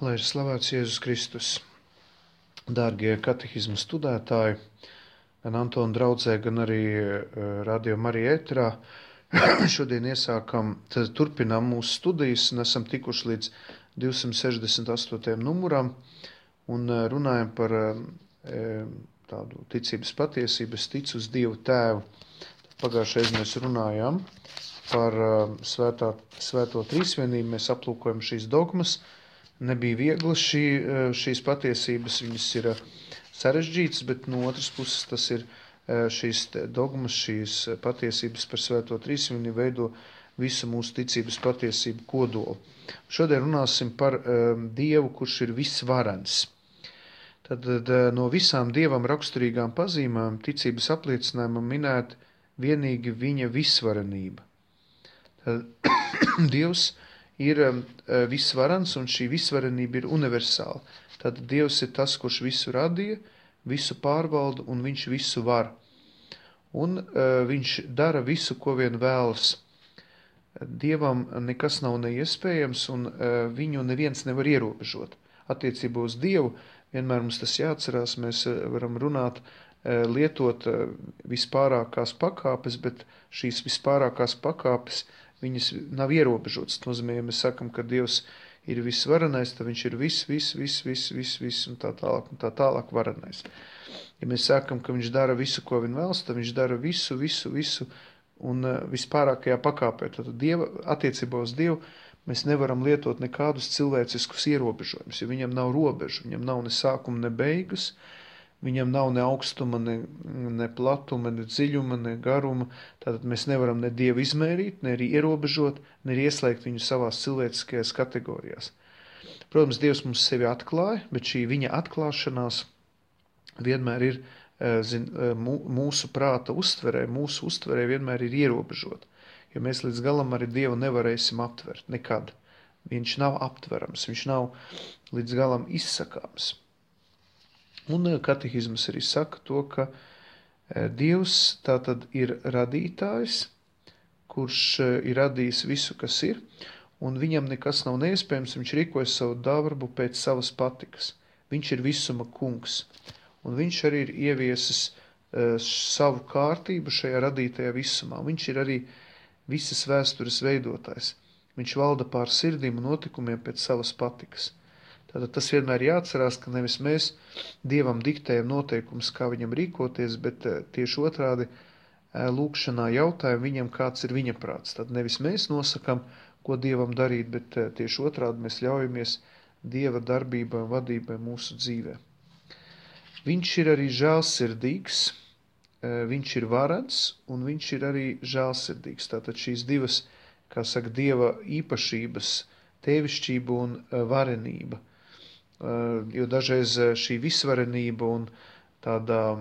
Lai ir slavēts Jēzus Kristus. Dārgie katehismu studētāji, gan Antona draudzē, gan arī Radio Marija ēterā, šodien turpinām mūsu studijas un esam tikuši līdz 268. numuram un runājam par tādu ticības patiesību, es ticu uz Dievu Tēvu. Pagājušajā mēs runājām par svēto trīsvienību, mēs aplūkojam šīs dogmas. Nebija viegli šīs patiesības, viņas ir sarežģītas, bet no otras puses tas ir šīs dogmas, šīs patiesības par svēto trīsvienību veido visu mūsu ticības patiesību kodolu. Šodien runāsim par Dievu, kurš ir visvarens. Tad no visām Dievam raksturīgām pazīmēm ticības apliecinājumam minēt vienīgi viņa visvarenība. Tad Dievs ir visvarens, un šī visvarenība ir universāla. Tad Dievs ir tas, kurš visu radīja, visu pārvalda, un viņš visu var. Un viņš dara visu, ko vien vēlas. Dievam nekas nav neiespējams, un viņu neviens nevar ierobežot. Attiecībā uz Dievu vienmēr mums tas jāatcerās, mēs varam runāt, lietot vispārākās pakāpes, bet šīs vispārākās pakāpes viņas nav ierobežotas. Tas nozīmē, ja mēs sakam, ka Dievs ir visvarenais, tad viņš ir viss un tā tālāk varenais. Ja mēs sakam, ka viņš dara visu, ko vien vēlas, tad viņš dara visu un vispārākajā pakāpē. Tad attiecībā uz Dievu mēs nevaram lietot nekādus cilvēciskus ierobežojumus, jo viņam nav robežu, viņam nav ne sākuma, ne beigas, viņam nav ne augstuma, ne platuma, ne dziļuma, ne garuma. Tātad mēs nevaram ne Dievu izmērīt, ne arī ierobežot, ne arī ieslēgt viņu savās cilvēciskajās kategorijās. Protams, Dievs mums sevi atklāja, bet šī viņa atklāšanās vienmēr ir mūsu prāta uztverē, mūsu uztverē vienmēr ir ierobežot. Jo mēs līdz galam arī Dievu nevarēsim aptvert nekad. Viņš nav aptverams, viņš nav līdz galam izsakāms. Un katehisms arī saka to, ka Dievs tātad ir radītājs, kurš ir radījis visu, kas ir, un viņam nekas nav neiespējams, viņš rīkojas savu darbu pēc savas patikas. Viņš ir visuma kungs, un viņš arī ir ieviesis savu kārtību šajā radītajā visumā. Viņš ir arī visas vēstures veidotājs. Viņš valda pār sirdīm un notikumiem pēc savas patikas. Tātad tas vienmēr jāatcerās, ka nevis mēs Dievam diktējam noteikumus, kā viņam rīkoties, bet tieši otrādi lūkšanā jautājam viņam, kāds ir viņa prāts. Tad nevis mēs nosakam, ko Dievam darīt, bet tieši otrādi mēs ļaujamies Dieva darbībai un vadībai mūsu dzīvē. Viņš ir arī žēlsirdīgs, viņš ir varens un viņš ir arī žēlsirdīgs. Tātad šīs divas, kā saka, Dieva īpašības, tēvišķība un varenība. Jo dažreiz šī visvarenība un tādā,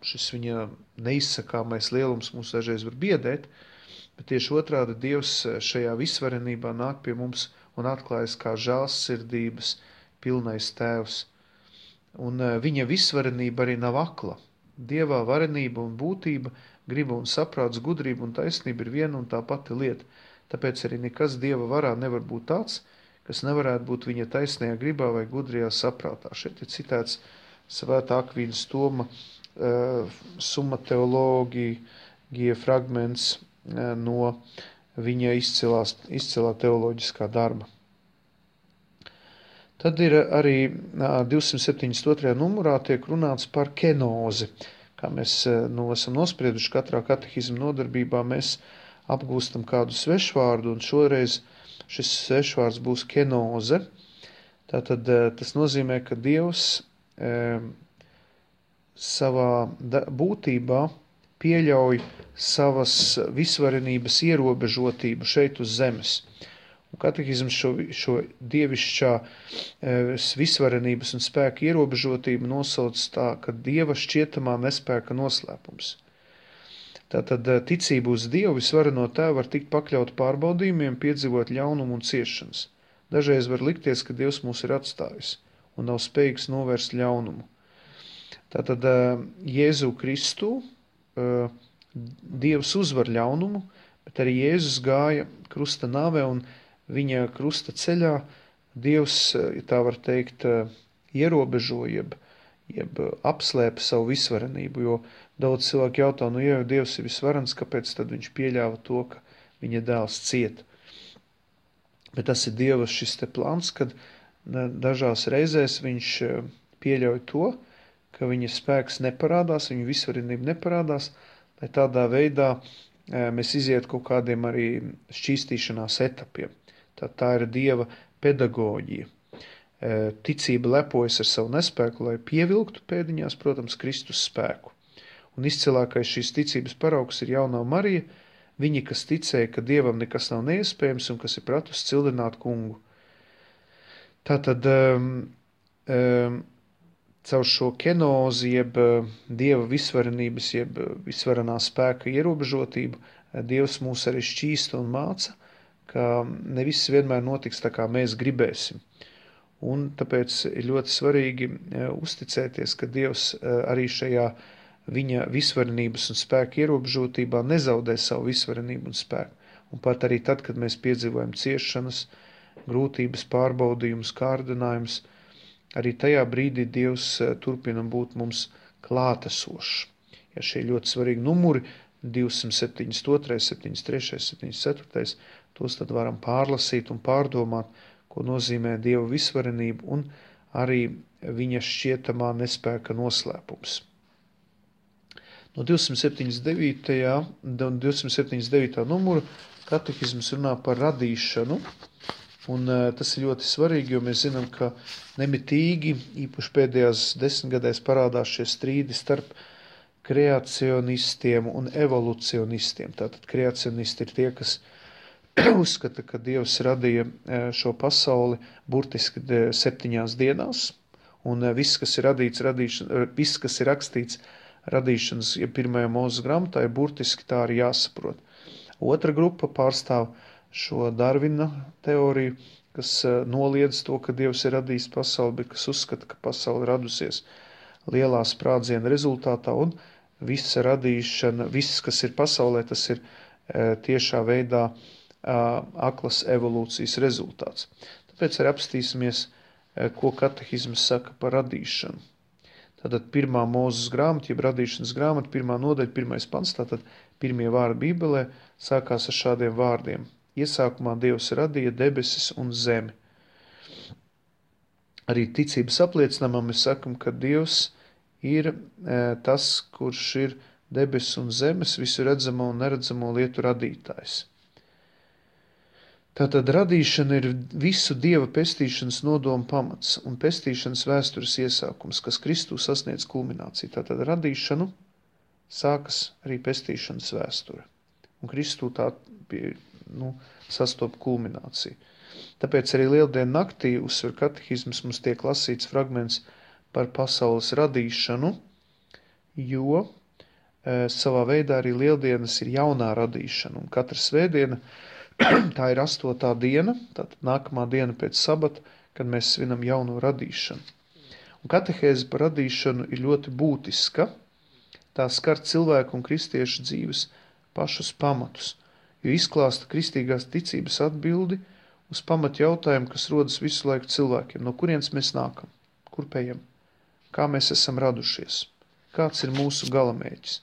šis viņa neizsakāmais lielums mūs dažreiz var biedēt, bet tieši otrādi Dievs šajā visvarenībā nāk pie mums un atklājas kā žēlsirdības pilnais tēvs. Un viņa visvarenība arī nav akla. Dievā varenība un būtība, griba un saprāts, gudrība un taisnība ir viena un tā pati lieta. Tāpēc arī nekas Dieva varā nevar būt tāds, kas nevarētu būt viņa taisnajā gribā vai gudrajā saprātā. Šeit ir citēts Svētā Akvīnas Toma Summa Theologiae fragments no viņa izcilā teoloģiskā darba. Tad ir arī 272. numurā tiek runāts par kenozi. Kā mēs esam nosprieduši katrā katehisma nodarbībā, mēs apgūstam kādu svešvārdu, un šoreiz šis svešvārds būs kenoze. Tātad tas nozīmē, ka Dievs savā būtībā pieļauj savas visvarenības ierobežotību šeit uz zemes. Un katehisms šo dievišķā visvarenības un spēka ierobežotību nosauc tā, ka Dieva šķietamā nespēka noslēpums. Tātad ticība uz Dievu visvareno tēvu var tikt pakļaut pārbaudījumiem, piedzīvot ļaunumu un ciešanas. Dažreiz var likties, ka Dievs mūs ir atstājis un nav spējīgs novērst ļaunumu. Tātad Jēzu Kristu Dievs uzvar ļaunumu, bet arī Jēzus gāja krusta nāvē un viņa krusta ceļā Dievs, ja tā var teikt, ierobežo, jeb apslēpa savu visvarenību, jo daudz cilvēku jautā, ja jau Dievs ir visvarens, kāpēc tad viņš pieļāva to, ka viņa dēls ciet? Bet tas ir Dieva šis te plāns, kad dažās reizēs viņš pieļauj to, ka viņa spēks neparādās, viņa visvarenība neparādās, lai tādā veidā mēs iziet kaut kādiem arī šķīstīšanās etapiem. Tā ir Dieva pedagoģija. Ticība lepojas ar savu nespēku, lai pievilktu pēdiņās, protams, Kristus spēku. Un izcilākais šīs ticības paraugs ir jaunā Marija, viņa, kas ticēja, ka Dievam nekas nav neiespējams un kas ir pratusi cildināt kungu. Tātad caur šo kenozi, jeb Dieva visvarenības, jeb visvarenā spēka ierobežotību, Dievs mūs arī šķīsta un māca, ka ne viss vienmēr notiks tā, kā mēs gribēsim. Un tāpēc ir ļoti svarīgi uzticēties, ka Dievs arī šajā viņa visvarenības un spēka ierobežotībā nezaudē savu visvarenību un spēku. Un pat arī tad, kad mēs piedzīvojam ciešanas, grūtības, pārbaudījumus, kārdinājumus, arī tajā brīdī Dievs turpina būt mums klātesošs. Ja šie ļoti svarīgi numuri, 272, 73, 74, tos tad varam pārlasīt un pārdomāt, ko nozīmē Dieva visvarenība un arī viņa šķietamā nespēka noslēpums. No 279. Numuru katehisms runā par radīšanu, un tas ir ļoti svarīgi, jo mēs zinām, ka nemitīgi, īpaši pēdējās 10 gadēs parādās šie strīdi starp kreacionistiem un evolucionistiem. Tātad kreacionisti ir tie, kas uzskata, ka Dievs radīja šo pasauli burtiski 7 dienās, un viss, kas ir viss, kas ir rakstīts radīšanas, ja pirmajā Mūzes grāmatā, ir burtiski tā arī jāsaprot. Otra grupa pārstāv šo Darvina teoriju, kas noliedz to, ka Dievs ir radījis pasauli, bet kas uzskata, ka pasauli radusies lielā sprādziena rezultātā, un visa radīšana, viss, kas ir pasaulē, tas ir tiešā veidā aklas evolūcijas rezultāts. Tāpēc arī apstīsimies, ko katehisms saka par radīšanu. Tātad pirmā Mūzes grāmata, jeb radīšanas grāmata, 1. nodaļa, 1. pants, tātad pirmie vārdi Bībelē sākās ar šādiem vārdiem. Iesākumā Dievs radīja debesis un zemi. Arī ticības apliecinājumā mēs sakam, ka Dievs ir tas, kurš ir debesis un zemes, visu redzamo un neredzamo lietu radītājs. Tātad radīšana ir visu Dieva pestīšanas nodomu pamats un pestīšanas vēstures iesākums, kas Kristū sasniedz kulmināciju. Tātad radīšanu sākas arī pestīšanas vēsture. Un Kristū tā sastop kulmināciju. Tāpēc arī Lieldienu naktī uzsver katehisms mums tiek lasīts fragments par pasaules radīšanu, jo savā veidā arī Lieldienas ir jaunā radīšana. Un katra svētdiena tā ir 8. diena, tātad nākamā diena pēc sabata, kad mēs svinam jauno radīšanu. Un katehēze par radīšanu ir ļoti būtiska. Tā skar cilvēku un kristiešu dzīves pašus pamatus, jo izklāsta kristīgās ticības atbildi uz pamat jautājumu, kas rodas visu laiku cilvēkiem. No kurienes mēs nākam? Kur pējam? Kā mēs esam radušies? Kāds ir mūsu galamērķis?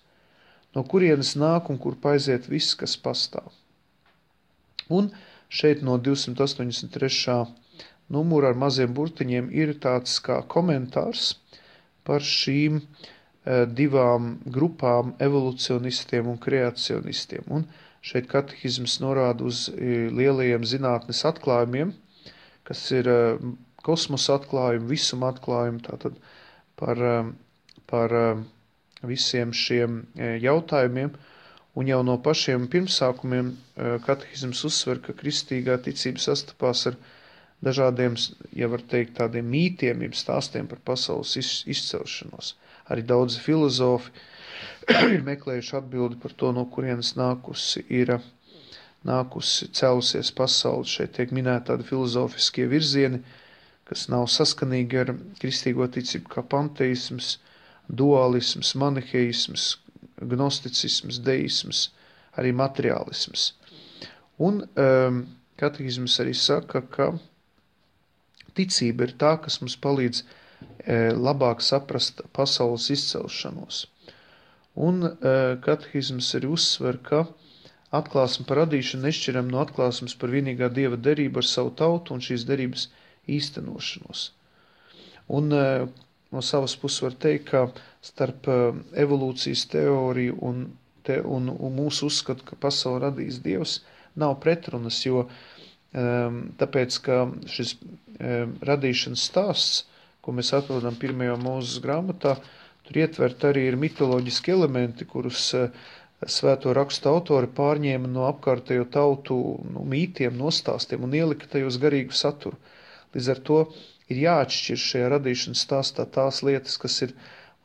No kurienes nāk un kur paiziet viss, kas pastāv? Un šeit no 283. numura ar maziem burtiņiem ir tāds kā komentārs par šīm divām grupām evolucionistiem un kreacionistiem. Un šeit katehisms norāda uz lielajiem zinātnes atklājumiem, kas ir kosmosa atklājumi, visuma atklājumi, tātad par visiem šiem jautājumiem. Un jau no pašiem pirmsākumiem katehisms uzsver, ka kristīgā ticība sastapās ar dažādiem, ja var teikt, tādiem mītiem, jeb stāstiem par pasaules izcelšanos. Arī daudzi filozofi ir meklējuši atbildi par to, no kurienes cēlusies pasaule. Šeit tiek minēti tādi filozofiskie virzieni, kas nav saskanīgi ar kristīgo ticību, kā panteisms, dualisms, maniheisms, gnosticisms, deisms, arī materiālisms. Un katehisms arī saka, ka Ticība ir tā, kas mums palīdz labāk saprast pasaules izcelšanos. Un katehisms arī uzsver, ka atklāsme par radīšanu nešķiram no atklāsmes par vienīgā Dieva derību ar savu tautu un šīs derības īstenošanos. Un no savas puses var teikt, ka starp evolūcijas teoriju un mūsu uzskatu, ka pasauli radījis Dievs, nav pretrunas, jo tāpēc, ka šis radīšanas stāsts, ko mēs atrodam pirmajā Mūzes grāmatā, tur ietvert arī ir mitoloģiski elementi, kurus svēto rakstu autori pārņēma no apkārtējo tautu mītiem, nostāstiem un ielika tajos garīgu saturu. Līdz ar to ir jāatšķir šajā radīšanas stāstā tās lietas, kas ir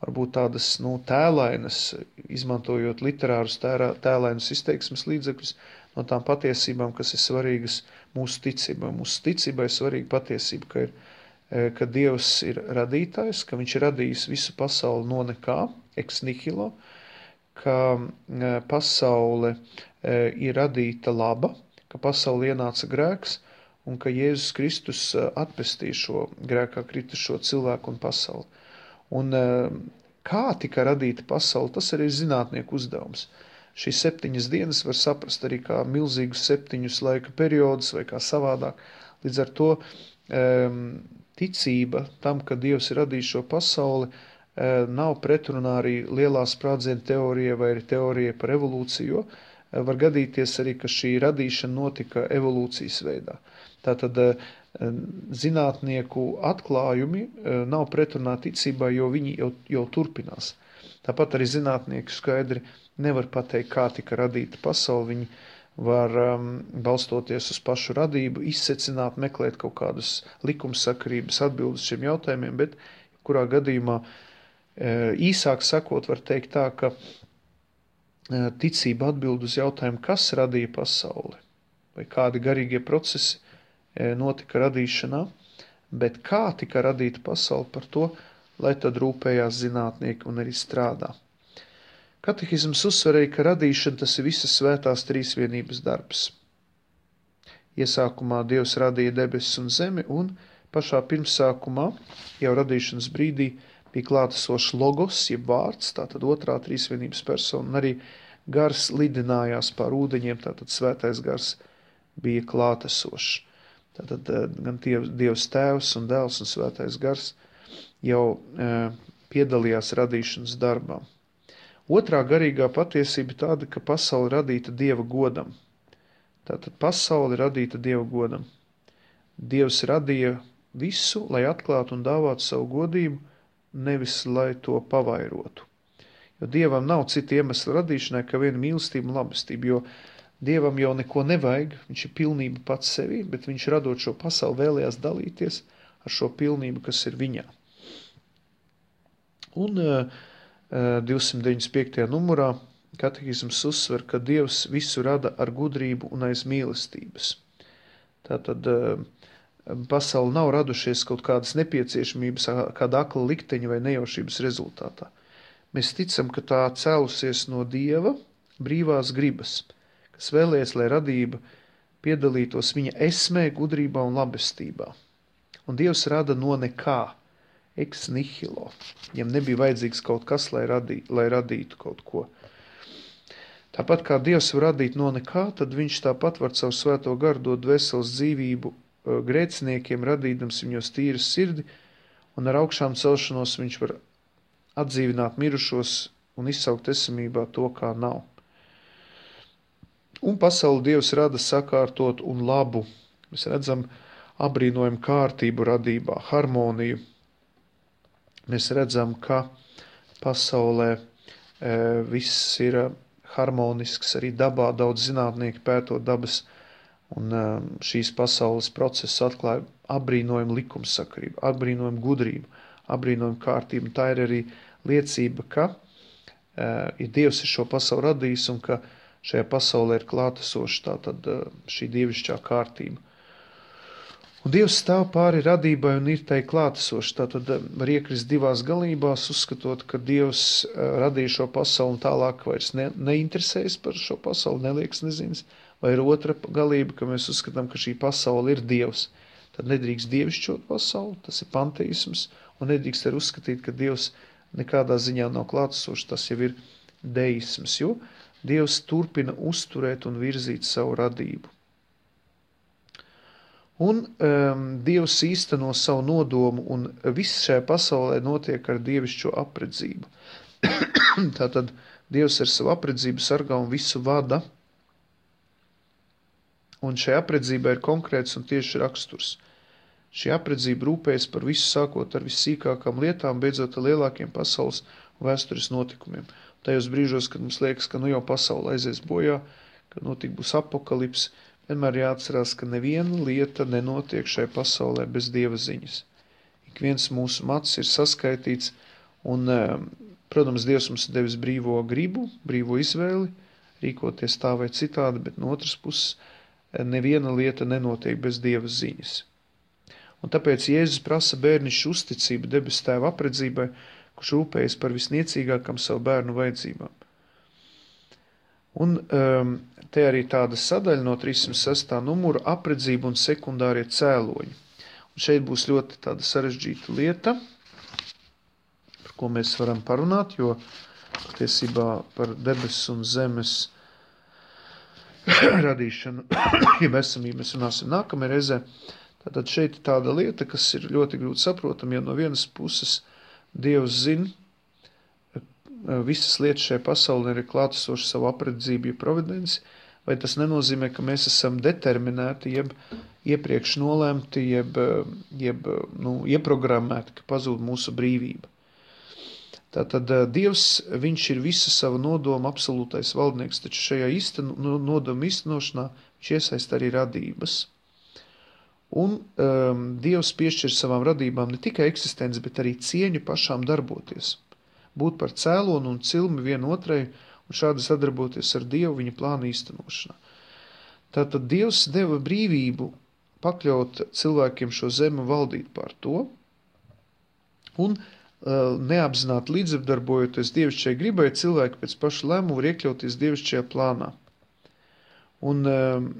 varbūt tādas tēlainas, izmantojot literārus tēlainus izteiksmes līdzekļus, no tām patiesībām, kas ir svarīgas mūsu ticībai. Mūsu ticībai ir svarīga patiesība, ka Dievs ir radītājs, ka viņš ir radījis visu pasauli no nekā, ex nihilo, ka pasaule ir radīta laba, ka pasauli ienāca grēks un ka Jēzus Kristus atpestīja šo grēkā kritušo cilvēku un pasauli. Un kā tika radīta pasaule, tas arī ir zinātnieku uzdevums. Šīs 7 dienas var saprast arī kā milzīgus 7 laika periodus vai kā savādāk. Līdz ar to ticība tam, ka Dievs ir radījis šo pasauli, nav pretrunā arī lielā sprādziena teorija vai arī teorija par evolūciju, jo var gadīties arī, ka šī radīšana notika evolūcijas veidā. Tātad zinātnieku atklājumi nav pretrunā ticībā, jo viņi jau turpinās. Tāpat arī zinātnieki skaidri nevar pateikt, kā tika radīta pasaule. Viņi var balstoties uz pašu radību, izsecināt, meklēt kaut kādas likumsakarības atbildes šiem jautājumiem, bet kurā gadījumā īsāk sakot var teikt tā, ka ticība atbild uz jautājumu, kas radīja pasauli, vai kādi garīgie procesi notika radīšanā, bet kā tika radīta pasaule, par to, lai tad rūpējās zinātnieki un arī strādā. Katehisms uzsver arī, ka radīšana tas ir visas svētās trīsvienības darbs. Iesākumā Dievs radīja debesis un zemi, un pašā pirmsākumā, jau radīšanas brīdī, bija klātesošs logos, jeb vārds, tātad otrā trīsvienības persona, un arī gars lidinājās pār ūdeņiem, tātad svētais gars bija klātesošs. Tātad gan Dievs tēvs un dēls un svētais gars jau piedalījās radīšanas darbā. Otrā garīgā patiesība tāda, ka pasaule radīta Dieva godam. Tātad pasaule radīta Dieva godam. Dievs radīja visu, lai atklātu un dāvātu savu godību, nevis lai to pavairotu. Jo Dievam nav cita iemesla radīšanai, kā viena mīlestība un labestība, jo Dievam jau neko nevajag, viņš ir pilnība pats sevī, bet viņš radot šo pasauli vēlējās dalīties ar šo pilnību, kas ir viņā. Un 295. numurā katehisms uzsver, ka Dievs visu rada ar gudrību un aiz mīlestības. Tātad pasauli nav radušies kaut kādas nepieciešamības, kāda akla likteņa vai nejaušības rezultātā. Mēs ticam, ka tā cēlusies no Dieva brīvās gribas, kas vēlēs, lai radība piedalītos viņa esmē, gudrībā un labestībā. Un Dievs rada no nekā, ex nihilo. Viņam nebija vajadzīgs kaut kas, lai radītu kaut ko. Tāpat kā Dievs var radīt no nekā, tad viņš tāpat var caur svēto garu dot dvēseles dzīvību grēciniekiem, radīdams viņos tīras sirdi, un ar augšām celšanos viņš var atdzīvināt mirušos un izsaukt esamībā to, kā nav. Un pasauli Dievs rada sakārtot un labu. Mēs redzam abrīnojumu kārtību radībā, harmoniju. Mēs redzam, ka pasaulē viss ir harmonisks, arī dabā daudz zinātnieki pētot dabas, un šīs pasaules procesu atklāja abrīnojumu likumsakarību, abrīnojumu gudrību, abrīnojumu kārtību. Un tā ir arī liecība, ka Dievs ir šo pasauli radījis un ka šajā pasaulē ir klātesoša tātad šī dievišķā kārtība. Un Dievs stāv pāri radībai un ir tai klātesoši. Tātad var iekrist divās galībās, uzskatot, ka Dievs radīja šo pasauli un tālāk vairs neinteresējas par šo pasauli, neliekas nezinas. Vai ir otra galība, ka mēs uzskatām, ka šī pasaule ir Dievs. tad nedrīkst dievišķot pasauli, tas ir panteisms, un nedrīkst arī uzskatīt, ka Dievs nekādā ziņā nav klātesošs, tas jau ir deisms, jo Dievs turpina uzturēt un virzīt savu radību. Un Dievs īsteno savu nodomu, un viss šajā pasaulē notiek ar dievišķo apredzību. Tātad Dievs ar savu apredzību sargā un visu vada, un šajā apredzībai ir konkrēts un tieši raksturs. Šī apredzība rūpējas par visu, sākot ar vissīkākām lietām, beidzot ar lielākiem pasaules un vēstures notikumiem. Tajos brīžos, kad mums liekas, ka nu jau pasaule aizies bojā, ka būs apokalips, vienmēr jāatcerās, ka neviena lieta nenotiek šai pasaulē bez Dieva ziņas. Ik viens mūsu mads ir saskaitīts, un, protams, Dievs mums ir devis brīvo gribu, brīvo izvēli, rīkoties tā vai citādi, bet no otras puses neviena lieta nenotiek bez Dieva ziņas. Un tāpēc Jēzus prasa bērnišķu uzticību debes Tēva apredzībai, kurš rūpējas par visniecīgākam savu bērnu vajadzībām. Un te arī tāda sadaļa no 306. numura apredzība un sekundārie cēloņi. Un šeit būs ļoti tāda sarežģīta lieta, par ko mēs varam parunāt, jo patiesībā par debesu un zemes radīšanu, ja esamību mēs runāsim nākamajā reizē. Tātad šeit ir tāda lieta, kas ir ļoti grūti saprotama, jo no vienas puses Dievs zina, visas lietas šajā pasaulē ir klātesoši savu apredzību, ja providenci, vai tas nenozīmē, ka mēs esam determinēti, jeb iepriekš nolēmti, jeb ieprogrammēti, ka pazūd mūsu brīvība. Tātad Dievs, viņš ir visa sava nodoma absolūtais valdnieks, taču šajā nodoma īstenošanā viņš iesaist arī radības. Un Dievs piešķir savām radībām ne tikai eksistenci, bet arī cieņu pašām darboties. Būt par cēlonu un cilmi vienotrai un šādi sadarboties ar Dievu viņa plāna īstenošanā. Tātad Dievs deva brīvību pakļaut cilvēkiem šo zemi un valdīt pār to, un neapzināti līdzdarbojoties dievišķai gribai, cilvēki pēc paša lēmuma var iekļauties dievišķajā plānā. Un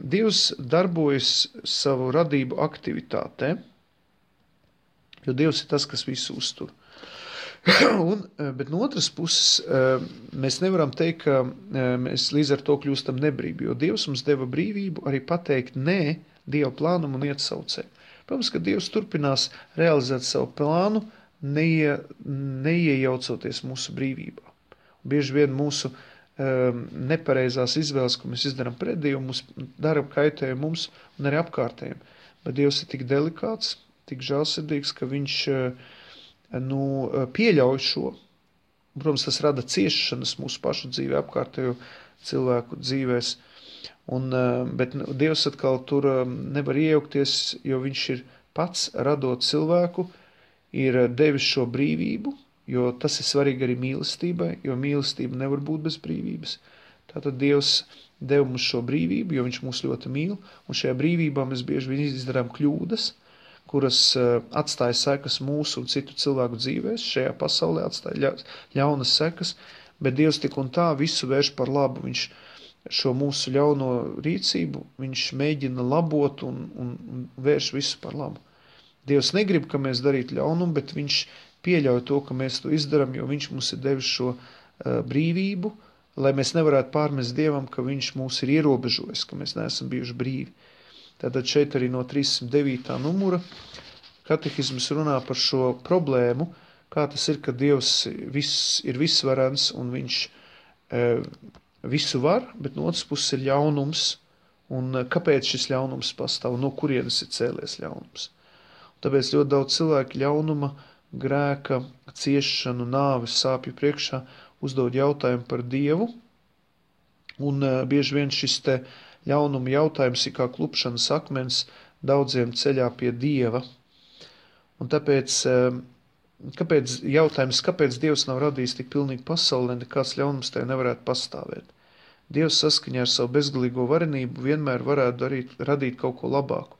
Dievs darbojas savu radību aktivitātē, jo Dievs ir tas, kas visu uztur. Bet no otras puses mēs nevaram teikt, ka mēs līdz ar to kļūstam nebrīvi, jo Dievs mums deva brīvību arī pateikt nē Dieva plānam un iet savu ceļu. Protams, ka Dievs turpinās realizēt savu plānu, neiejaucoties mūsu brīvībā. Bieži vien mūsu nepareizās izvēles, ko mēs izdarām pret Dievu, mums dara kaitējumu mums un arī apkārtējiem. Bet Dievs ir tik delikāts, tik žēlsirdīgs, ka viņš pieļauj šo. Protams, tas rada ciešanas mūsu pašu dzīvē, apkārtējo cilvēku dzīvēs. Bet Dievs atkal tur nevar iejaukties, jo viņš ir pats radot cilvēku, ir devis šo brīvību, jo tas ir svarīgi arī mīlestībai, jo mīlestība nevar būt bez brīvības. Tātad Dievs deva mums šo brīvību, jo viņš mūs ļoti mīl, un šajā brīvībā mēs bieži vien izdarām kļūdas, kuras atstāja sekas mūsu un citu cilvēku dzīvēs, šajā pasaulē atstāja ļaunas sekas, bet Dievs tik un tā visu vērš par labu. Viņš šo mūsu ļauno rīcību, viņš mēģina labot un vērš visu par labu. Dievs negrib, ka mēs darītu ļaunumu, bet viņš pieļauj to, ka mēs to izdaram, jo viņš mums ir devis šo brīvību, lai mēs nevarētu pārmest Dievam, ka viņš mūs ir ierobežojis, ka mēs neesam bijuši brīvi. Tātad šeit arī no 309. numura katehisms runā par šo problēmu, kā tas ir, ka Dievs ir visvarens un viņš visu var, bet no otras puses ir ļaunums, un kāpēc šis ļaunums pastāv, no kurienes ir cēlies ļaunums. Tāpēc ļoti daudz cilvēku ļaunuma, grēka, ciešanu, nāves, sāpju priekšā uzdod jautājumu par Dievu, un bieži vien šis te ļaunuma jautājums ir kā klupšanas akmens daudziem ceļā pie Dieva. Un tāpēc kāpēc Dievs nav radījis tik pilnīgi pasaulē, nekāds ļaunums tajā nevarētu pastāvēt. Dievs saskaņā ar savu bezgalīgo varenību vienmēr varētu radīt kaut ko labāku.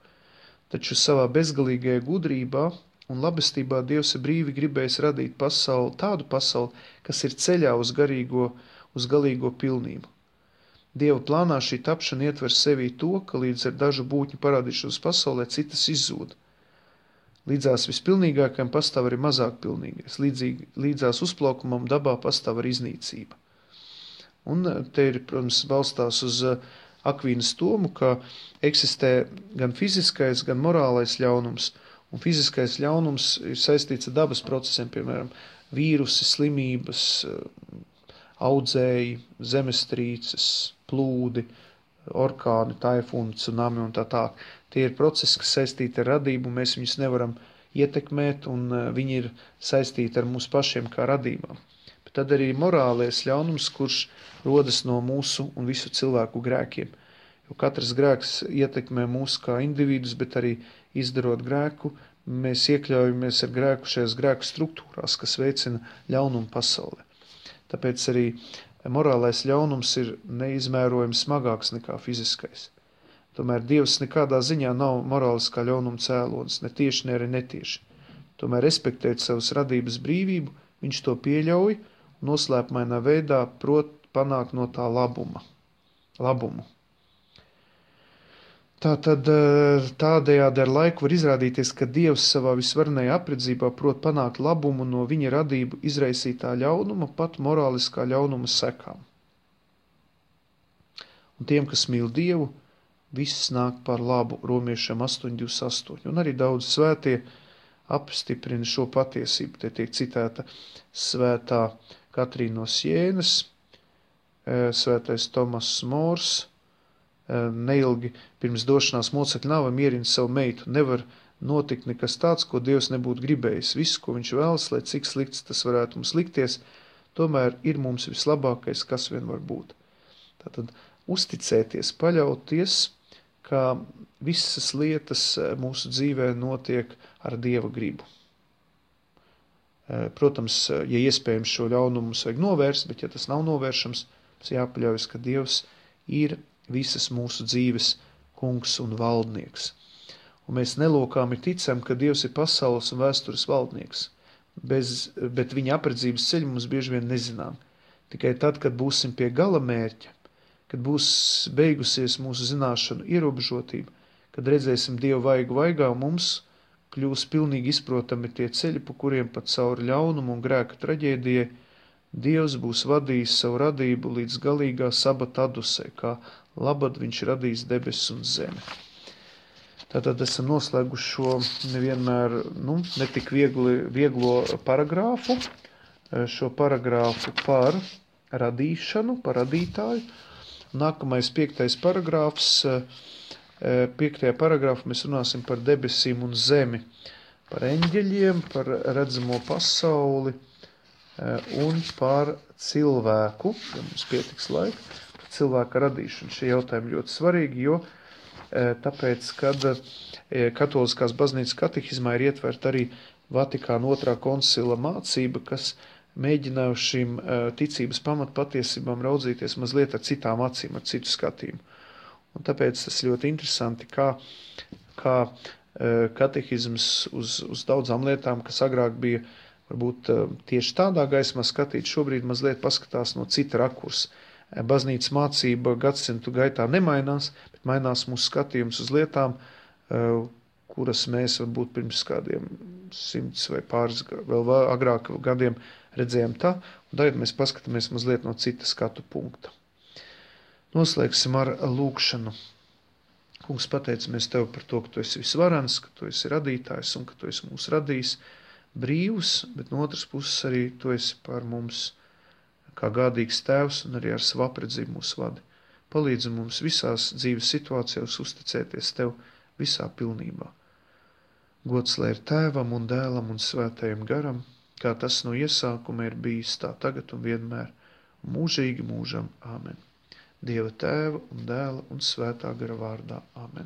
Taču savā bezgalīgajā gudrībā un labestībā Dievs ir brīvi gribējis radīt pasauli, tādu pasauli, kas ir ceļā uz galīgo pilnību. Dieva plānā šī tapšana ietver sevī to, ka līdz ar dažu būtņu parādīšanos pasaulē citas izzūd. Līdzās vispilnīgākajam pastāv arī mazāk pilnīgais. Līdzās uzplaukumam dabā pastāv arī iznīcība. Un te ir, protams, balstās uz Akvīnas domu, ka eksistē gan fiziskais, gan morālais ļaunums. Un fiziskais ļaunums ir saistīts ar dabas procesiem, piemēram, vīrusi, slimības, audzēji, zemestrīces, plūdi, orkāni, taifūni, tsunami un tā tā. Tie ir procesi, kas saistīti ar radību, mēs viņus nevaram ietekmēt, un viņi ir saistīti ar mūsu pašiem kā radībām. Bet tad arī morālais ļaunums, kurš rodas no mūsu un visu cilvēku grēkiem. Jo katrs grēks ietekmē mūs kā individus, bet arī izdarot grēku, mēs iekļaujamies ar grēku šajās grēku struktūrās, kas veicina ļaunumu pasaulē. Tāpēc arī morālais ļaunums ir neizmērojami smagāks nekā fiziskais. Tomēr Dievs nekādā ziņā nav morāliskā ļaunuma cēlonis, ne tieši, ne arī netieši. Tomēr respektēt savas radības brīvību, viņš to pieļauj un noslēpmainā veidā prot panākt no tā labumu. Tātad tādējādi ar laiku var izrādīties, ka Dievs savā visvarenajā apredzībā prot panākt labumu no viņa radību izraisītā ļaunuma, pat morāliskā ļaunuma sekām. Un tiem, kas mīl Dievu, viss nāk par labu, Romiešiem 8:28. Un arī daudz svētie apstiprina šo patiesību. Te tiek citēta svētā Katrīna no Sienas, svētais Tomas Mors, neilgi pirms došanās mocekļu nāvei mierina savu meitu. Nevar notikt nekas tāds, ko Dievs nebūtu gribējis. Viss, ko viņš vēlas, lai cik slikts tas varētu mums likties, tomēr ir mums vislabākais, kas vien var būt. Tātad uzticēties, paļauties, ka visas lietas mūsu dzīvē notiek ar Dieva gribu. Protams, ja iespējams šo ļaunumu mums vajag novērst, bet ja tas nav novēršams, mums jāpaļaujas, ka Dievs ir visas mūsu dzīves kungs un valdnieks. Un mēs nelokāmi ticam, ka Dievs ir pasaules un vēstures valdnieks, bet viņa apredzības ceļu mums bieži vien nezinām. Tikai tad, kad būsim pie gala mērķa, kad būs beigusies mūsu zināšanu ierobežotība, kad redzēsim Dievu vaigu vaigā, mums kļūs pilnīgi izprotami tie ceļi, pa kuriem pat cauri ļaunumu un grēka traģēdijai Dievs būs vadījis savu radību līdz galīgā sabata adusē, kā labad viņš radīs debesis un zemi. Tātad esam noslēguši šo nevienmēr, netik vieglo paragrāfu, šo paragrāfu par radīšanu, par radītāju. Nākamais 5. paragrāfs. 5. paragrāfā mēs runāsim par debesīm un zemi, par eņģeļiem, par redzamo pasauli un par cilvēku, ja mums pietiks laika, par cilvēka radīšanu. Šie jautājumi ļoti svarīgi, jo tāpēc, kad katoliskās baznīcas katehizmā ir ietverta arī Vatikāna 2. koncila mācība, kas mēģināja uz šīm ticības pamatpatiesībām raudzīties mazliet ar citām acīm, ar citu skatījumu. Un tāpēc tas ļoti interesanti, kā katehizms uz daudzām lietām, kas agrāk bija varbūt tieši tādā gaismā skatīt, šobrīd mazliet paskatās no cita rakursa. Baznīcas mācība gadsimtu gaitā nemainās, bet mainās mūsu skatījums uz lietām, kuras mēs varbūt pirms kādiem 100 vai pāris vēl agrāk gadiem redzējām tā, un tagad mēs paskatāmies mazliet no cita skatu punkta. Noslēgsim ar lūkšanu. Kungs, pateicamies Tev par to, ka Tu esi visvarens, ka Tu esi radītājs un ka Tu esi mūs radījis brīvus, bet no otras puses arī Tu esi par mums kā gādīgs Tēvs un arī ar savu apredzību mūs vadi. Palīdzi mums visās dzīves situācijās uzticēties Tev visā pilnībā. Gods lai ir Tēvam un Dēlam un Svētajam garam, kā tas no iesākuma ir bijis, tā tagad un vienmēr, mūžīgi mūžam. Āmen. Dieva Tēva un Dēla un Svētā gara vārdā. Āmen.